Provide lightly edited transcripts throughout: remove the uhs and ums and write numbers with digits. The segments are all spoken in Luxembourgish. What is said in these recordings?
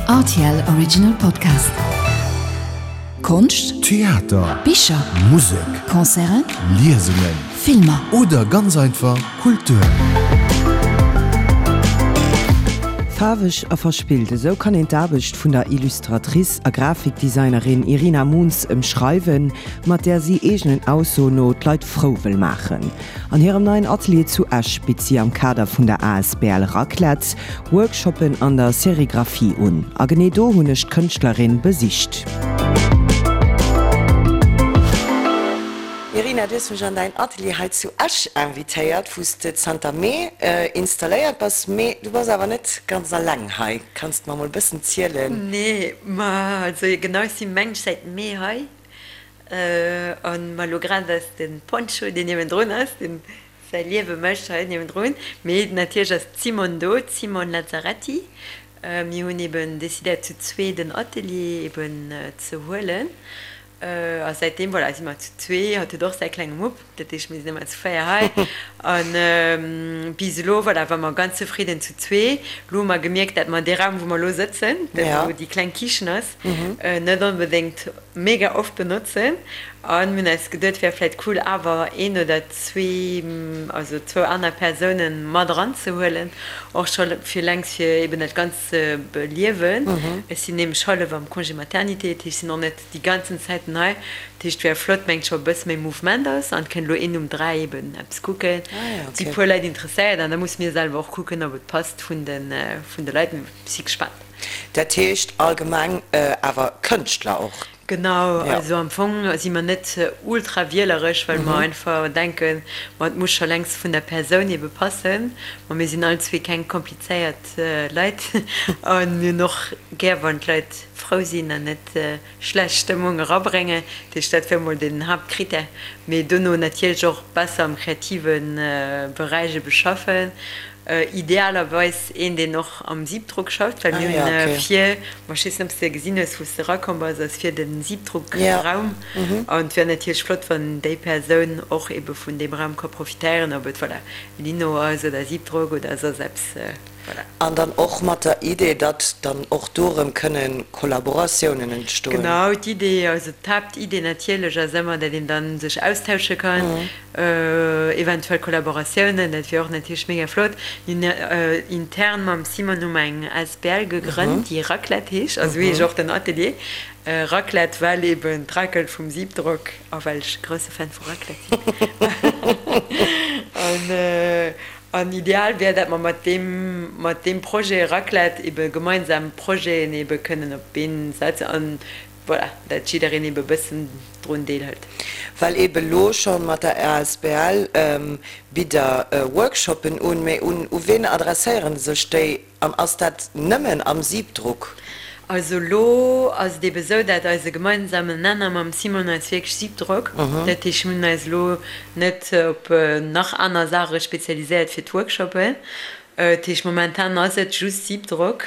Rtl Original Podcast. Konscht, Theater, Bicher, Musek, Concerten, Liesungen Filmer. oder ganz einfach Kultur. Faarweg a verspillt, esou kann een d'Aarbecht vun der Illustratrice a Grafikdesignerin Irina Moons ëmschreiwen, mat där si eegenen Aussoen no d'Leit frou wëll maachen. An hirem neien Atelier zu Esch bitt si am Kader vun der asbl Raclette Workshoppen an der Serigraphie un. A genee do hunn ech d'Kënschtlerin besicht. Irina, du hues mech an däin Atelier hei zu Esch invitéiert, wou s de zanter Mee installéiert bass. Mee du bass awer net ganz alleng hei. Kanns de mer mol e bëssen zielen? Nee, ma also genau, ech si mengt säit Mee hei. An ma lo grad ass den Poncho deen niewendrun ass, deen säi Liewe mécht hei niewendrun. Mee natierlech ass d'Simone do, d'Simone Lazzaretti. Mir hunn eben decidéiert zu zwee den Atelier eben ze huelen. A säitdeem, voilà, si mer zu zwee. Hatt huet och säi klenge Mupp, dat heescht mir sinn ëmmer zu 4 hei. An bis elo, voilà, war mer ganz zefridden zu zwee. Lo hu mer gemierkt, dat mer dee Raum wou mer lo sëtzen, dat wou déi kleng Kichen ass, net onbedéngt mega oft benotzen an mir hunn eis geduet wär vläit cool awer een oder zwee, also zwou aner Persounen mat eran ze huelen, och scho fir lenks fir eben dat Ganzt ze beliewen. Ech sinn nämlech hallef am Congé maternité, dat heescht ech sinn och net déi ganzen Zäiten hei, dat heescht wär flott mengt scho e bësse méi Mouvement ass an et kënnt elo een um 3 eben eppes kucken, et si puer Leit interesséiert an da musse mir selwer och kucken ob et passt vun de vun de Leit, mee si gespaant. Dat heescht allgemeng awer Kënschtler och? Genau, also am Fong si mer net ultra wieleresch, well mer einfach denken, ma et muss scho längst vun der Persoun ebe passen. Ma mir sinn all zwee keng komplizéiert Leit a mir hunn och gär, wann d'Leit frou sinn an net schlecht Stëmmung erabréngen. Dat heescht, dat wär mol den Haaptkrittär. Mee dono natierlech och besser am kreative Beräich ebe schaffen. Idealerweis een, deen och am Siebdruck schafft, well mir hunn vir, ma ech weess net, ob s de gesinn hues, wou s de erakomm bass, ass vir de Siebdruckraum. An et wär natierlech flott, wann déi Persoun och ebe vun deem Raum ka profitéieren, ob et, voilà, Lino ass oder Siebdruck oder soss eppes, voilà. An dann och mat der Idee, datt dann och do erëm kënne Kollaboratiounen entstoen. Genau, d'Idee, also d'Haaptidee natierlech ass ëmmer, datt een da sech austausche kann. Eventuell Kollaboratiounen, dat wier och natierlech mega flott. Mir hunn intern mam Simon hu mer eng asbl gegrënnt, déi Raclette heescht, also esou heescht och den Atelier, Raclette, well eben d'Racel vum Siebdrock a well ech e grousse Fan vu Raclette sinn. An ideal wär, dat mer mat deem, mat deem Projet Raclette ebe gemeinsam Projeten ebe kënnen op d'Been setzen an Voilà, dat jiddereen ebe bëssen drun deelhëlt. Well ebe lo schonn mat der asbl bitt der Workshoppen un, mee un u ween adresséieren sech déi an ass dat nëmmen am Siebdruck? Also lo ass et ebe sou, dat eise gemeinsamen Nenner mam Simon eis wierklech Siebdruck, dat heescht mir hunn eis elo net op nach aner Saache spezialiséiert fir d'Workshoppen, Dat heescht momentan ass et just Siebdrock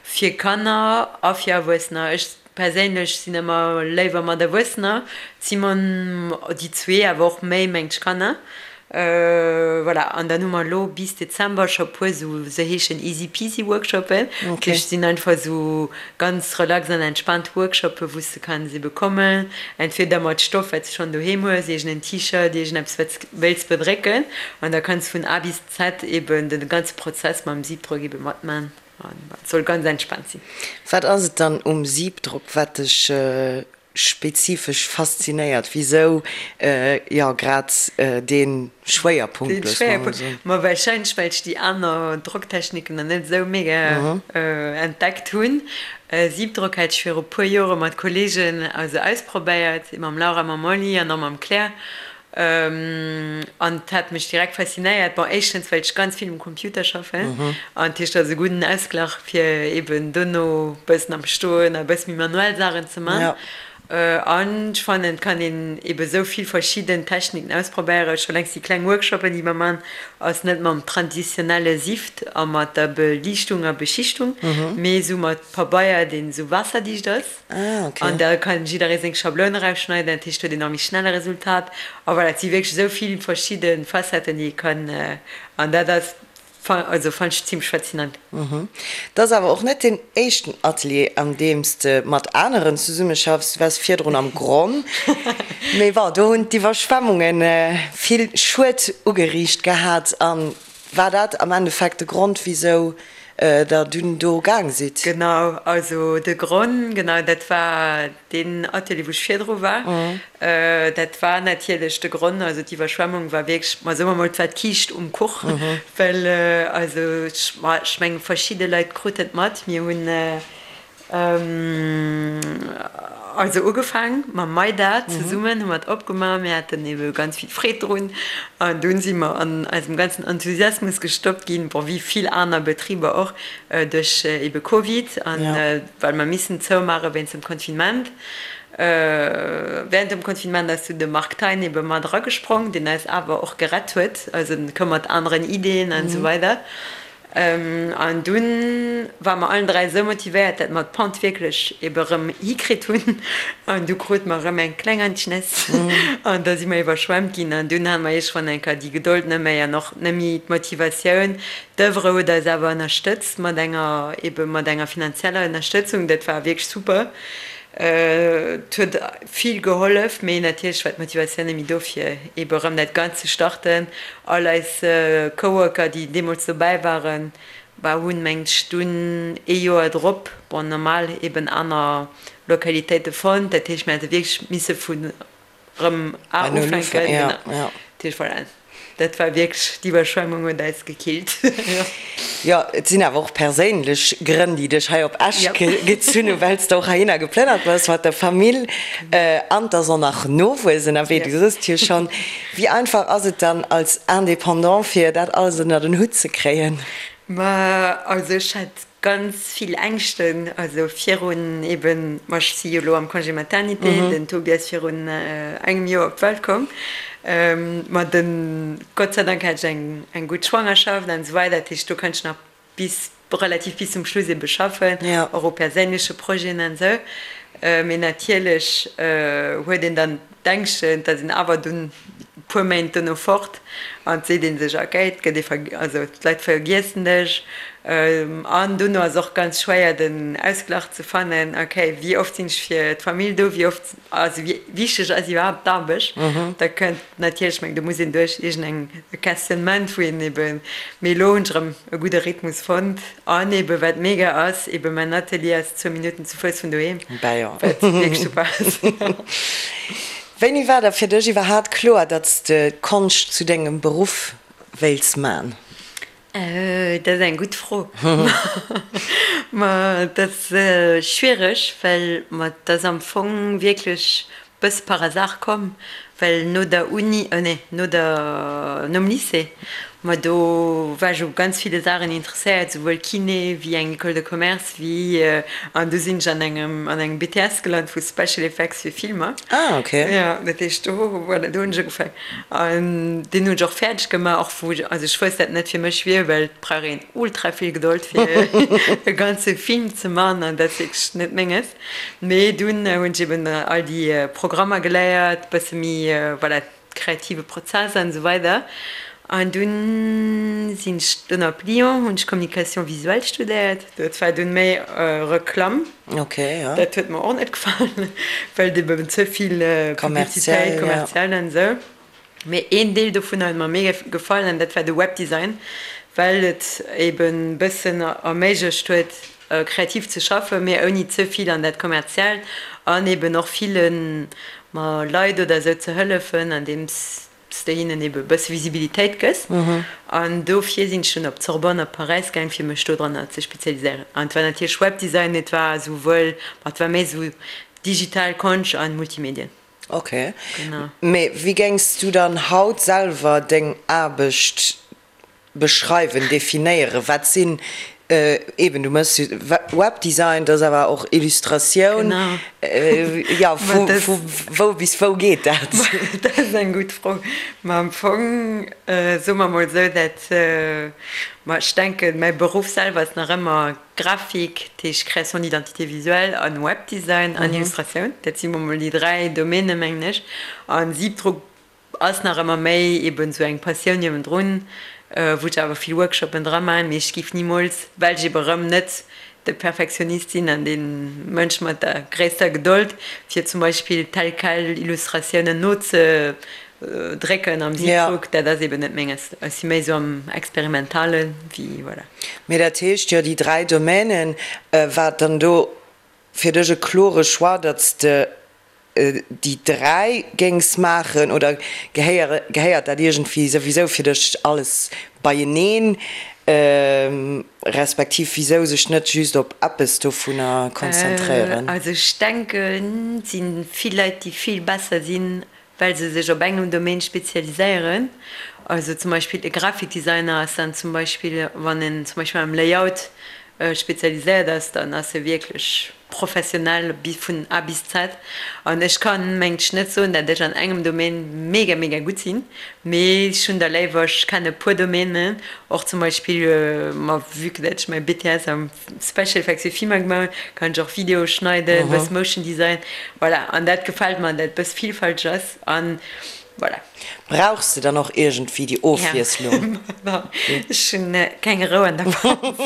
fir Kanner a fir Erwuessener. Ech perséinlech sinn ëmmer léiwer mat Erwuessener, d'Simone, déi zwee awer och méi mengt ech Kanner. Voilà, an dann hu mer elo bis Dezember scho puer sou, se heeschen Easy Peasy Workshoppen. Dat heescht sinn einfach esou ganz relax an entspaant Workshoppen, wou s de kanns ebe kommen, entweder mat Stoff wat s de schonn doheem hues, iergend en T-Shirt, iergendeppes wat s wéilts bedrécken an da kanns vun A bis Z eben den ganze Prozess mam Siebdrock eben matman an et soll ganz entspannt sinn. Wat ass et dann um Siebdrock wat dech spezifesch faszinéiert? Wisou jo grad dee Schwéierpunkt, Den Schwéierpunkt? Ma wahrscheinlech well ech déi aner Drocktechniken nach net esou mega entdeckt hunn. Siebdrock hat ech viru puer Jore mat Kollegen also ausprobéiert, mam Laura, mam Molly an och mam Claire. An et hat mech direkt faszinéiert. Bon, éischtens, well ech ganz vill um Computer schaffen. An dat heescht, dat ass e gudden Ausglach, fir eeben dono e bëssen am Stoen a e bësse méi manuell Saachen ze man. An ech fannen, et kann een eebe sou vill verschidden Techniken ausprobéieren. Scho längst déi kleng Workshoppen, déi mer man, ass net mam traditionelle Sift a mat der Beliichtung a Beschichtung, mee esou mat Pabeier, deen esou waasserdicht ass. Ah, ok. An da kann jidderee seng Schabloun erausschneiden, dat heescht huet een nach méi schnell e Resultat. A voilà, et si wierklech esou vill verschidde Facetten, déi ee kann, an dat ass. Also fannen ech zimmlech faszinant. Et ass awer och net deen éischten Atelier an deem s de mat aneren zesummeschaffs. Du waars virdrun am Gronn, mee bon, do hunn d'Iwwerschwemmunge vill Schued ugeriicht gehat. A war dat am Endeffekt de Grond, wisou der dunn do gaang sidd? Genau, also de Gronn, genau, dat war Deen Atelier, wou ech virdru war, dat war natierlech de Gronn. Also d'Iwwerschwemmung war wierklech, ma soe mer mol, et war d'Kiischt um Kuch, well also ech, ma ech mengen, verschidde Leit kruten et mat. Mir hunn also ugefaang mam Maida zesummen, hu mer et opgemaach. Mir haten ebe ganz vill Freed drun an dunn si mer an eisem ganzen Enthusiasmus gestoppt ginn, bon, wéi vill aner Betriber och, duerch ebe Covid an well mer missen zoumaache wéinst dem Confinement. Während dem Confinement ass du de Marc Thein ebe mat eragesprong, deen eis awer och gerett huet, also en koum mat aneren Ideeën an esou weider. An dunn ware mer allen 3 esou motivéiert, dat mer d'Pente wierklech ebe erëm hikritt hunn an du krute mer erëm eng kleng Anschness an da si mer iwwerschwemmt ginn an dunn hate mer iergendwann eng Kéier déi Gedold net méi an och net méi d'Motivatioun. D'Oeuvre huet eis awer ënnerstëtzt mat enger, ebe mat enger finanzieller Ënnerstëtzung. Dat war wierklech super. Et huet vill gehollef, mee natierlech war d'Motivatioun net méi do fir ebe erëm dat Ganzt ze starten. All eis Coworker, déi deemools dobäi waren, bah, hunn, mengt ech, dunn ee Joer drop, bon, normal eben aner Lokalitéite fonnt. Dat heescht, mir hätte wierklech misse vun Rëm Bei Null ufänken, ja, genau. Ja. Dat heescht, voilà, dat war wierklech, d'Iwwerschwemmung huet eis gekillt. Jo, et sinn awer och perséinlech Grënn, déi dech hei op Esch gezunn hunn, well s de och heihinner geplënnert bass mat der Famill an et ass och nach Nowuess ënnerwee, du soss et jo schonn. Wéi einfach ass et dann als Indépendant, fir dat alles ënnert en Hutt ze kréien? Ma also ech hat Ganz vill Ängschten, also virun eben, ma ech si jo elo am Congé maternité, den Tobi ass virun engem Joer op d'Welt komm, ma den, Gott sei Dank hat ech eng eng gutt Schwangerschaft an esou weider, dat heescht do konnt ech nach bis, relativ bis zum Schluss ebe schaffen, och u perséinleche Projeten an esou, mee natierlech huet een dann d'Ängschten, et ass een awer dunn e puer Méint dono fort an et seet ee sech, okay, et gëtt ee ver, also d'Leit vergiessen dech. An dono ass och ganz schwéier den Ausglach ze fannen, okay, wéi oft sinn ech fir d'Famill do, wéi oft, also wéi wichteg ass iwwerhaapt d'Aarbecht. Da kënnt natierlech, ech mengen, do muss een duerch iergendeng e Questionnement, wou een eben, mee elo hunn ech erëm e gudde Rhythmus fonnt. An eben, wat mega ass, eben mäin Atelier ass zwou Minutten zu Fouss vun doheem, wat wierklech super ass. Wéini war da fir dech iwwerhaat kloer, datt s de d'Konscht zu dengem Beruff wéils man? Dat ass eng gutt Fro. Ma dat ass schwiereg, well ma et ass am Fong wierklech Bëss par hasard komm, well no der Uni, oh nee, no der, nom Lycée, ma do war ech u ganz ville Saachen interesséiert, souwuel Kiné wéi eng École de commerce wéi, an du sinn ech an engem, an engem BTS gelant vu Special Effects fir Filmer. Ah, ok. Jo, dat heescht do, voilà, do hunn ech ugefaang an deen hunn ech och fäerdeg gemaach, och wou ech, also ech wousst dat net fir mech wier, well et brauch een ultra vill Gedold fir e ganze Film ze man an dat ass wierklech net menges. Mee dunn hunn ech eben all déi Programmer geléiert, bësse méi, voilà, kreative Prozess an esou weider. An dunn sinn ech dunn op Lyon, hunn ech Communication visuelle studéiert. Dat war dunn méi Reklamm. Ok, jo. Dat huet mer och net gefall, well et eben ze vill Publicitéit, kommerziell an esou. Mee een Deel dovunner huet mer mega gefall an dat war de Webdesign, well et eben bëssen erméiglecht huet kreativ ze schaffen, mee ouni ze vill an dat kommerziellt an eben och ville Leit oder esou ze hëllefen andeems s de hinnen ebe bësse Visibilitéit gëss. An dofir sinn ech dunn op d'Sorbonne op Paräis gaang fir mech dodranner ze spezialiséieren. An et war natierlech Webdesign, mee et war esouwuel, ma et war méi esou digital Konscht an Multimedien. Ok. Mee wéi géings du dann haut selwer deng Aarbecht beschreiwen, definéieren? Wat sinn, eben du méchs Webdesign, dat ass awer och Illustratioun, jo vu wou bis wou geet dat? Dat ass eng gutt Fro. Ma am Fong soe mer mol esou, dat, ma ech denken, mäi Beruff selwer ass nach ëmmer Grafik, dat heescht Création d'identité visuelle, an Webdesign an Illustratioun. Dat si mol déi 3 Domainen, mengen ech. An Siebdruck ass nach ëmmer méi eben esou eng Passioun niewendrun, wou ech awer vill Workshopen dra maachen, mee ech giff nimools, well ech eben erëm net de Perfektionist sinn an dee Mënsch mat der gréisster Gedold, fir zum Beispill tel quel Illustratiounen nozedrécken am Siebdruck, dat ass eben net menges. Ech si méi esou am Experimentale wéi, voilà. Mee dat heescht jo, déi 3 Domänen, war et dann do fir dech e klore Choix, datt s de déi 3 géings maachen oder gehéiert dat iergendwéi souwisou fir dech alles beieneen, respektiv wisou sech net just op eppes dovunner konzentréieren? Also ech denken, et si vill Leit, déi vill besser sinn, well se sech op engem Domaine spezialiséieren. Also zum Beispill e Grafikdesigner ass dann zum Beispill, wann en zum Beispill am Layout spezialiséiert ass, dann ass e wierklech professionell vun A bis Z. An ech kann mengt ech net soen, dat ech an engem Domaine mega mega gutt sinn, mee ech hunn der léiwer, ech kenne puer Domainen, och zum Beispill, ma vue que dat ech mäi BTS am Special Effects fir Filmer gemaach hunn, kann ech och Videoe schneiden, bëss Motion Design, voilà. An dat gefält mer, dat bëss villfälteg ass an voilà. Brauchs de dann och iergendwéi déi Ofwiesslung? Ja, ech hunn keng Rou an der Panz.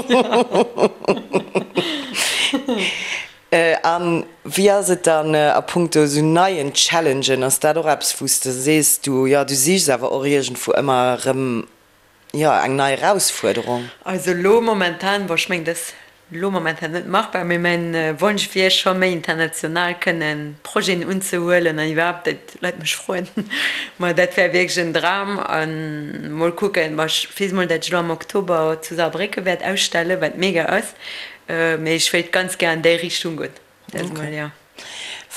A wéi ass et dann a punkto esou neien Challengen? Ass dat och eppes, wou s de sees, du, jo, du sichs awer och iergendwou ëmmer erëm Jo, eng nei Erausfuerderung. Also elo momentan, bon ech mengen dat ass elo momentan net machbar, mee mäin Wonsch wier scho méi international kënnen Projeten unzehuelen an iwwerhaapt dat Leit mech froen. Ma dat wär wierklech en Dram an mol kucken, ma ech weess mol dat ech elo am Oktober zu Saarbrécken wäert ausstellen, wat mega ass, mee ech wéilt ganz gär an déi Richtung goen. Dat mol, jo.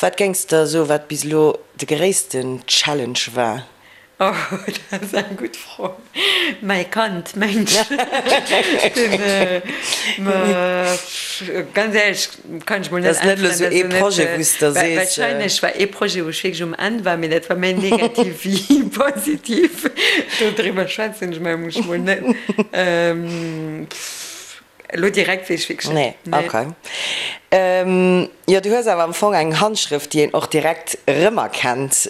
Wat géings de soen, wat bis elo de gréissten Challenge war? Oh, dat ass eng gutt Fro. Mäi Kand, mengt ech. Ganz éierlech kann ech mol net äntweren. Dat ass net elo sou ee Projet, wou s de sees. Wahrscheinlech war ee Projet, wou ech wierklech um Enn war, mee dat war méi negativ wéi positiv. Dodriwwer schwätzen ech mol net. Elo direkt weess ech wierklech net. Nee, okay. Jo, du hues awer am Fong eng Handschrëft, déi een och direkt erëmerkennt,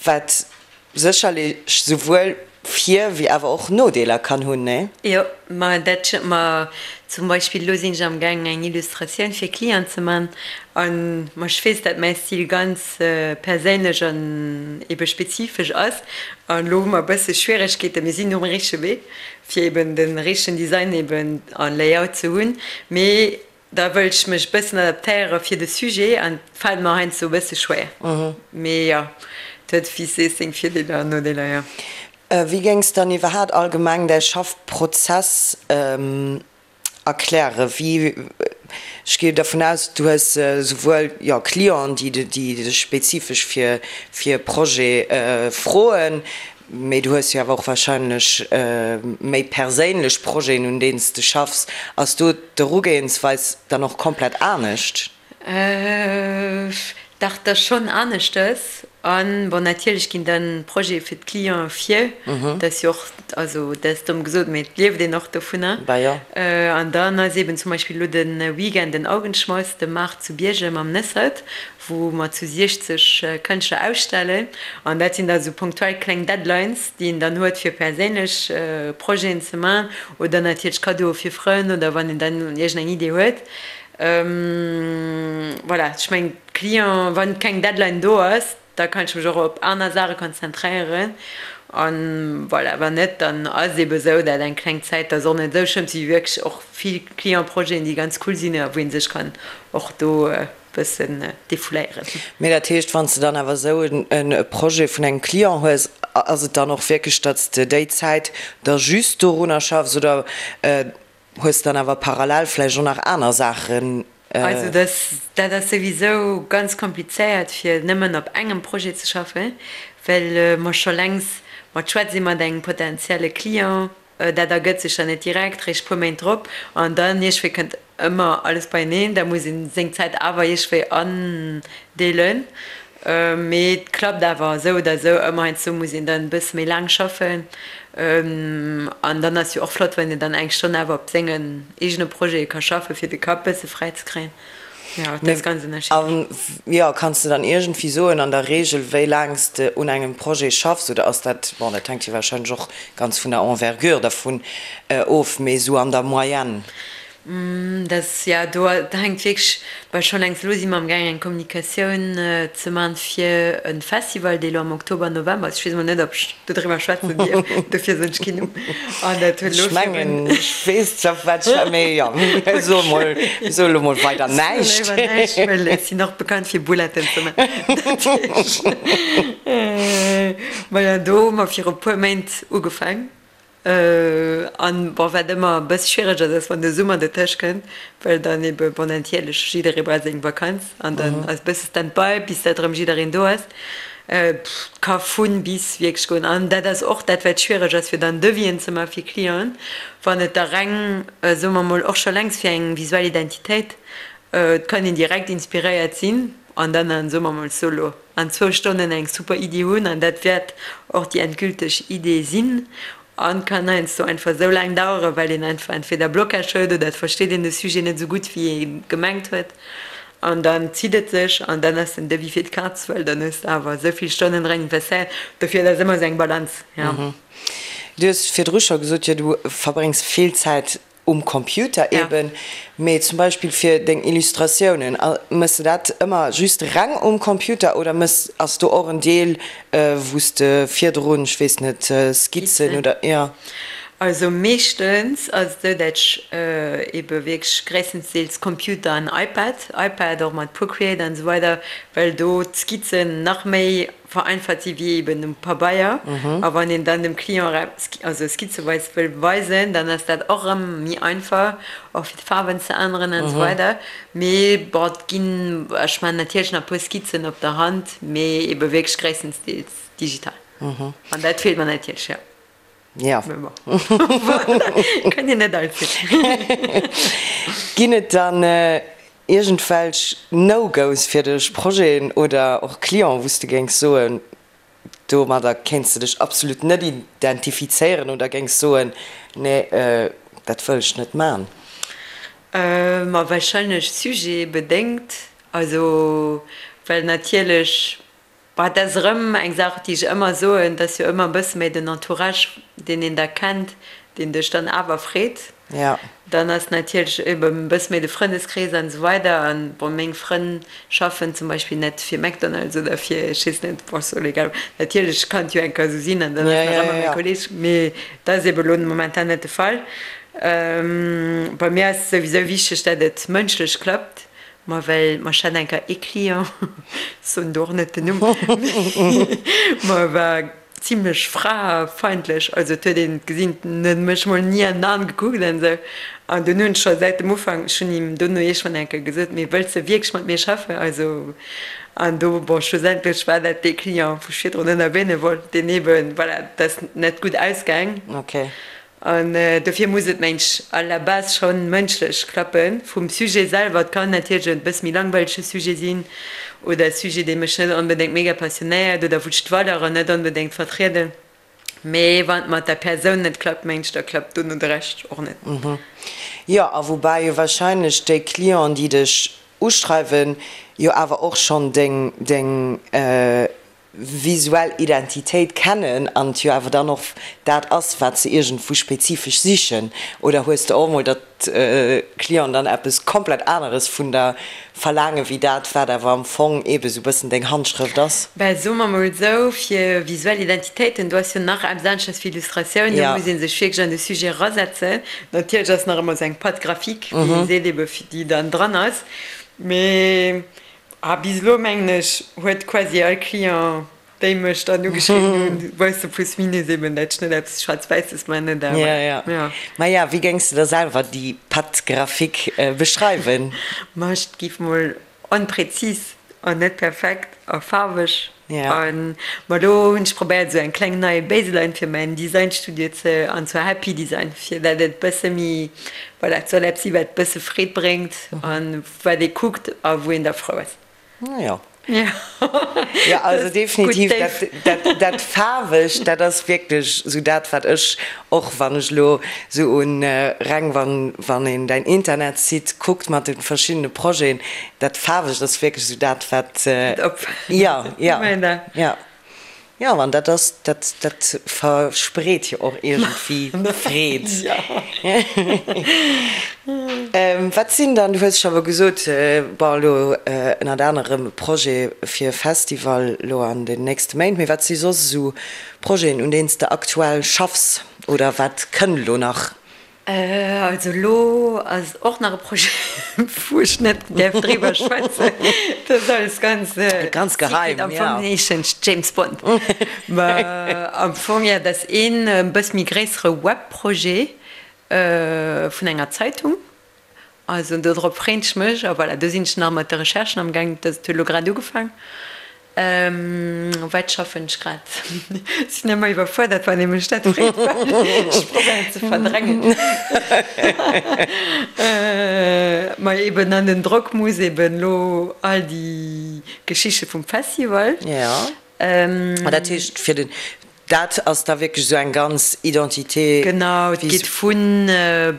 wat sécherlech souwuel Vir wéi awer och Nodeeler kann hunn, nee? Jo, ma dat stëmmt. Ma zum Beispill elo sinn ech am gaangen eng Illustratioun fir Client ze man an ma ech weess, dat mäi Stil ganz perséinlech an ebe spezifesch ass an elo hu mer e bësse Schwieregkeeten, mir sinn um richtege Wee, fir eben de richtegen Design eben a Layout ze hunn, mee da wëll ech mech e bëssen adaptéiere fir de Sujet an et fält mer heiansdo e bësse schwéier. Mee jo, et huet wéi s sees seng Virdeeler an Nodeeler, jo. Wéi géings dann iwwerhaat allgemeng däi Schaffprozess Erkläre wéi, ech gehe dervun aus, du hues souwuel, jo, Clienten, déi dech spezifesch fir fir e Projet froen, mee du hues jo awer och wahrscheinlech méi perséinlech Projeten, un deenen s de schaffs. Ass do d'Erugehensweis dann och komplett anescht? Dach, dat ass schonn aneschtes. An, bon, natierlech ginn dann Projete fir d'Clienten vir. Dat ass jo och, also dat ass domm gesot, mee et lieft een och dovunner. An dann ass eeben zum Beispill elo de Weekend den Augenschmaus, de Maart zu Biergem am Nëssert, wou mer zu 60 Kënschtler ausstellen. An dat sinn da sou punktuell kleng Deadlines, déi een dann huet, fir perséinlech Projeten ze man oder natierlech Kaddoe fir Frënn oder wann een dann iergendeng Idee huet. Voilà, ech mengen d'Client, wann keng Deadline do ass, da kann ech mech och op aner Saache konzentréieren an voilà, wann net, dann ass et ebe sou, dat eng kleng Zäit, dat ass och net esou schlëmm, si wierklech och vill Client-Projeten, déi ganz cool sinn a wou ee sech kann och do e bëssen defouléieren. Mee dat heescht, wann s de dann awer esou e Projet vun engem Client hues, ass et dann och wierklech, datt s de déi Zäit da just dorunner schaffs oder Hues dann awer parallel vläicht och nach aner Saachen? Also dat ass souwisou ganz komplizéiert fir nëmmen op engem Projet ze schaffen, well mer scho längst mat schwätz si mat engem potentielle Client. Dat ergëtt sech dann net direkt, réischt puer Méint drop an dann iergendwéi kënnt ëmmer alles beieneen. Da muss ee seng Zäit awer iergendwéi andeelen. Mee et klappt awer esou oder esou ëmmer. Heiansdo muss een dann e bësse méi laang schaffen. An dann ass jo och flott, wann een dann eng Stonn awer op sengen eegene Projete ka schaffen, fir de Kapp bësse fräi ze kréien. Jo, dat ass ganz ënnerschiddlech. A jo, kanns de dann iergendwéi soen an der Reegel, wéi laang s de un engem Projet schaffs? Oder ass dat, bon, dat hänkt jo warscheinlech och ganz vun der Envergure dervun of, mee esou an der Moyenne? Dat ass, jo, do hänkt wierklech, well scho längst elo si mer amgaang eng Kommunikatioun ze man fir e Festival, dee elo am Oktober, November ass. Ech weess emol net, ob ech dodriwwer schwätzen dierf, dofir soen ech keen Numm. An dat huet elo Ech mengen, ech weess zwar, wat ech, mee jo, so emol, so elo mol weider näischt. Ech soe léiwer näischt, well ech sinn och bekannt fir Bouletten ze man. Dat heescht, maja, do hu mer viru puer Méint ugefaang. An bon, wat ëmmer e bësse schwiereg ass, ass wann de Summer dertëscht kënnt, well dann ebe bon natierlech jidderee brauch seng Vakanz an dann ass e bësse Stand-by bis dat erëm jiddereen do ass. Et ka vun bis wierklech goen an dat ass och dat wat schwiereg ass fir dann Devis'en ze maache fir Clienten, wann et da reng, soe mer mol, och scho längst fir eng visuell Identitéit, et kann een direkt inspiréiert sinn an dann an, soe mer mol, solo. an zwou Stonnen eng super Iddi hunn an dat wäert och déi endgülteg Idee sinn an kann heiansdo einfach esou laang daueren, well een einfach entweder Blocage huet oder et versteet een de Sujet net esou gutt wéi ee gemengt huet an dann zitt et sech an dann ass den Devis fir d'Kaz, well dann hues de awer esou vill Stonnen dran investéiert. Dofir, et ass ëmmer esou eng Balance, jo. Du hues virdru scho gesot, jo du verbréngs vill Zäit Um Computer eben, mee zum Beispill fir deng Illustratiounen, mëss de dat ëmmer just reng um Computer oder mëss, ass do och en Deel wou s de virdrun, ech weess net, Skizzen oder, jo? Also meeschtens ass et esou, dat ech ebe wierklech gréisstendeels Computer an iPad, iPad och mat Procreate an esou weider, well do d'Skizzen nach méi vereinfacht si wéi eben um Pabeier. A wann een dann dem Client also skizzeweis wëll weisen, dann ass dat och erëm méi einfach, och fir d'Faarwen ze änneren an esou weider. Mee bon, et ginn, ech maachen natierlech nach e puer Skizzen op der Hand, mee ebe wierklech gréisstendeels digital. An dat feelt mer natierlech, jo. Jo. Mee bon, voilà, kann een net alles hunn. Ginn et dann iergendwelch No-Go's fir dech, Projeten oder och Clienten, wou s de géings soen, domadder kéints de dech absolut net identifizéieren oder géings soen, nee, dat wëll ech net man? Ma wahrscheinlech sujetbedéngt. Also, well natierlech Bah, dat ass erëm eng Saach, déi ech ëmmer soen, et ass jo ëmmer e bësse méi den Entourage, deen een da kennt, deen dech dann awer freet. Ja. Dann ass natierlech eben e bësse méi de Frëndeskrees an esou weider. An bon, meng Frënn schaffen zum Beispill net fir McDonald's oder fir ech weess net, bon, ass och egal. Natierlech kann et jo eng Kéier esou sinn an dann ass nach ëmmer mäi Kolleeg, mee dat ass eben elo momentan net de Fall. Bei mir ass souwisou wichteg, dat et mënschlech klappt. Ma well mer ech hat eng Kéier ee Client, soen do och net den Numm, ma e war zimlech fraefeindlech, also et huet een gesinn, en huet mech mol ni an d'An gekuckt an esou. An dunn hunn ech scho säit dem Ufank, ech hunn him dono iergendwann eng Kéier gesot, mee wëlls de wierklech mat mir schaffen? Also an do, bon, schlussendlech war dat dee Client, wou ech virdrun net erwähne wollt, deen eeben, voilà, dat ass net gutt ausgaang. Okay. An dofir muss et, meng ech, à la base scho mënschlech klappen. Vum Sujet selwer, et kann natierlech e bësse méi langweilege Sujet sinn oder e Sujet, dee mech net onbedéngt mega passionéiert oder wou ech d'Valeuren net onbedéngt vertrieden, mee wann et mat der Persoun net klappt, meng ech, da klappt dono de Rescht och net. Jo, a woubäi jo wahrscheinlech déi Clienten, déi dech uschreiwen, jo awer och schonn deng, deng visuell Identitéit kennen an et jo awer dann och dat ass, wat se iergendwou spezifesch sichen? Oder hues de och emol, datt d'Clienten dann eppes komplett aneres vun der verlaangen, wéi dat, wat awer am Fong eebe sou bëssen deng Handschrëft ass? Ben, soe mer mol esou, fir visuell Identitéiten, do ass jo nach eppes aneschters wéi Illustratioun, do muss ee sech wierklech an de Sujet erasetzen. Natierlech ass nach ëmmer esou eng Patte graphique, wéi ee seet, ebe fir déi dann dran ass, mee A bis elo, mengen ech, huet quasi all Client, déi mech dann ugeschriwwen hunn, weist de plus minus eben, dat ech net eppes Schwaarz-Wäisses man oder Ja, ja. ja. Maja, wéi géings de da selwer déi Patte graphique beschreiwen? Ma ech géif mol onpräzis an net perfekt a faarweg Ja. an ma do hunn ech probéiert esou eng kleng nei Baseline fir mäin Designstudio ze, an zwar Happy Design, fir dat et bësse méi, voilà, et soll eppes si wat bësse Freed bréngt an wat ee kuckt a wou een da frou ass. Naja. Jo, also definitiv dat, dat Faarwegt, dat ass wierklech esou dat, wat ech och, wann ech elo esou un reng, wann, wann een däin Internetsite kuckt mat de verschiddene Projeten, dat Faarwegt ass wierklech esou dat, wat, jo, jo, jo. Jo, an dat ass, dat, dat verspreet jo och iergendwéi Freed. Wat sinn dann, du hues scho awer gesot, bon, elo ënnert anerem e Projet fir e Festival elo an den nächste Méint, mee wat si soss esou Projeten, un deenen s de aktuell schaffs oder wat kënnt elo nach? Also elo ass och nach e Projet, wou ech net däerf driwwer schwätzen. Dat ass alles ganz Ganz geheim, secret. Am ja. Fong heeschen ech James Bond. Mä am Fong, jo, dat ass een e bësse méi gréissere Webprojet vun enger Zeitung. Also dodrop freen ech mech. A voilà, do sinn ech nach mat de Recherchen am gaang. Dat huet elo grad ugefaang. Wat schaffen ech grad? Sinn ëmmer iwwerfuerdert wann ee mech dat freet, well ech probéieren ze verdrängen. Ma eben an den Drock muss eben elo all déi Geschichte vum Festival. Jo, ma dat heescht fir den, dat ass da wierklech esou eng ganz Identité. Genau, et geet vu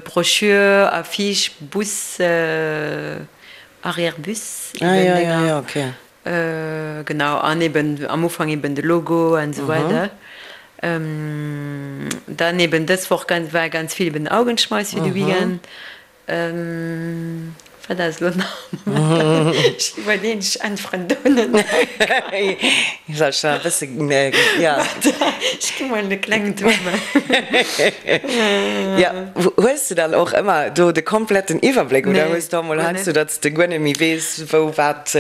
Broschür, Affiche, Bus, Arrière-Bus, eben Dénger. Genau, an eben am Ufank eben de Logo an esou weider. Dann eben dës Woch war ganz vill eben Augenschmeiss fir de Weekend. Wat ass elo nach? Moment, ech iwwerleeën, ech äntweren do net. Soll ech nach e bësse, jo. Ech gi mol e klengen Tour maachen. Jo, hues de dann och ëmmer do de kompletten Iwwerbléck oder hues de och mol heiansdo, datt s de guer net méi weess, Wou wat,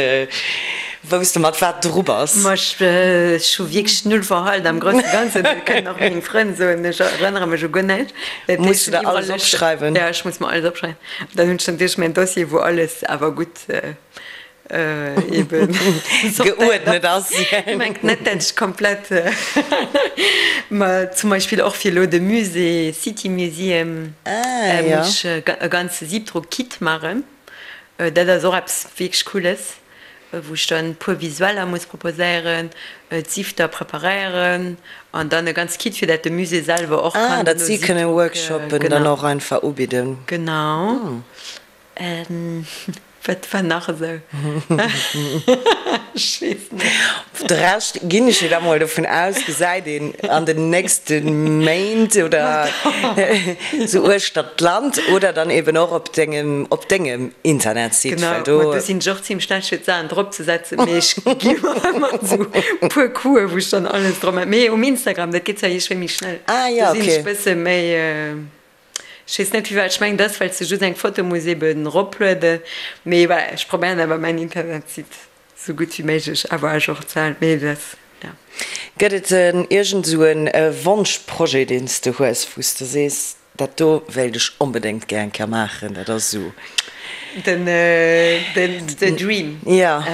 wou s de mat wat dru bass. Ma ech hu wierklech null Verhalt am grousse Ganzen, dat kënnen och meng Frënn soen, ech erënnere mech u guer näischt. Dat Muss du der alles opschreiwen? Jo, ech muss mer alles opschreiwen. Dann hunn ech natierlech mäin Dossier, wou alles awer gutt eben geuerdnet ass. Mengt net, dat ech komplett, ma zum Beispill och fir elo de Musée, City Museum, muss ech e ganze Siebdruck-Kit maachen. Dat ass och eppes wierklech Cooles, wou ech dann e puer Visueller muss proposéieren, d'Sifter preparéieren an dann e ganz Kit, fir dat de Musée selwer och kann. Ah, datt si kënnen Workshoppen dann och einfach ubidden. Genau. Wat war nach esou? Ech weess net. De Rescht, ginn ech jo da mol dovun aus, gesäit een an den nächste Méint oder sou uechter d'Land oder dann eben och op dengem, op dengem Internetsite, well do. Genau, ma do sinn ech och zimmlech schlecht fir d'Saachen drop ze setzen, mee ech gi mer ëmmer sou puer Coupen, wou ech dann alles drop maachen. Mee um Instagram, dat geet zwar iergendwéi méi schnell, Ah jo, do sinn okay. ech bësse méi. Ech weess net firwat, ech mengen et ass well s de just eng Foto muss eben eroplueden, mee voilà, ech probéieren awer mäin Internetsite sou gutt wéi méiglech awer à jour ze halen, mee dat ass ja. Gëtt et en iergend esou e Wonschprojet deen s de hues, wou s de sees, dat do wéilt ech onbedéngt gär eng Kéier maachen, dat ass esou. Den the dream? Jo.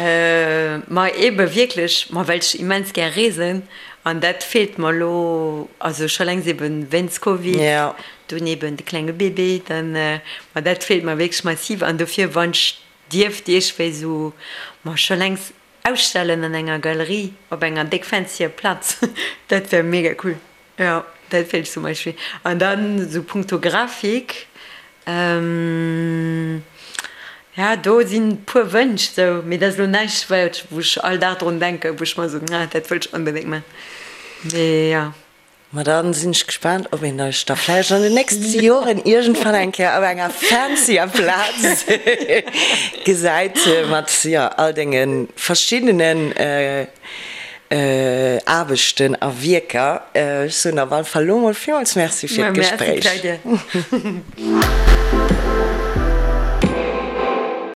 Ma ebe wierklech, ma well ech immens gär reesen An dat feelt mer elo, also scho längst eben wéinst Covid, dunn eben de klenge Bébé, dann, ma dat feelt mer wierklech massiv. An dofir, wann ech dierft iergendwéi esou, ma scho längst ausstellen an enger Galerie op enger déck fancyer Plaz, dat wär mega cool. Jo, dat feelt zum Beispill. An dann esou punkto Grafik, Ja, do sinn puer Wënsch sou, mee dat ass elo näischt wat wou ech all Dag drun denken, wou ech mer soen, ah dat wëll ech onbedéngt man, mee jo. Ma dann sinn ech gespaant ob een dech da vläicht an den nächste Joren iergendwann eng Kéier op enger fancyer Plaz gesäit mat, jo, all denge verschiddenen Aarbechten a Wierker. Ech soen op alle Fall elo mol villmools Merci fir Merci d'Gespréich. Claudia.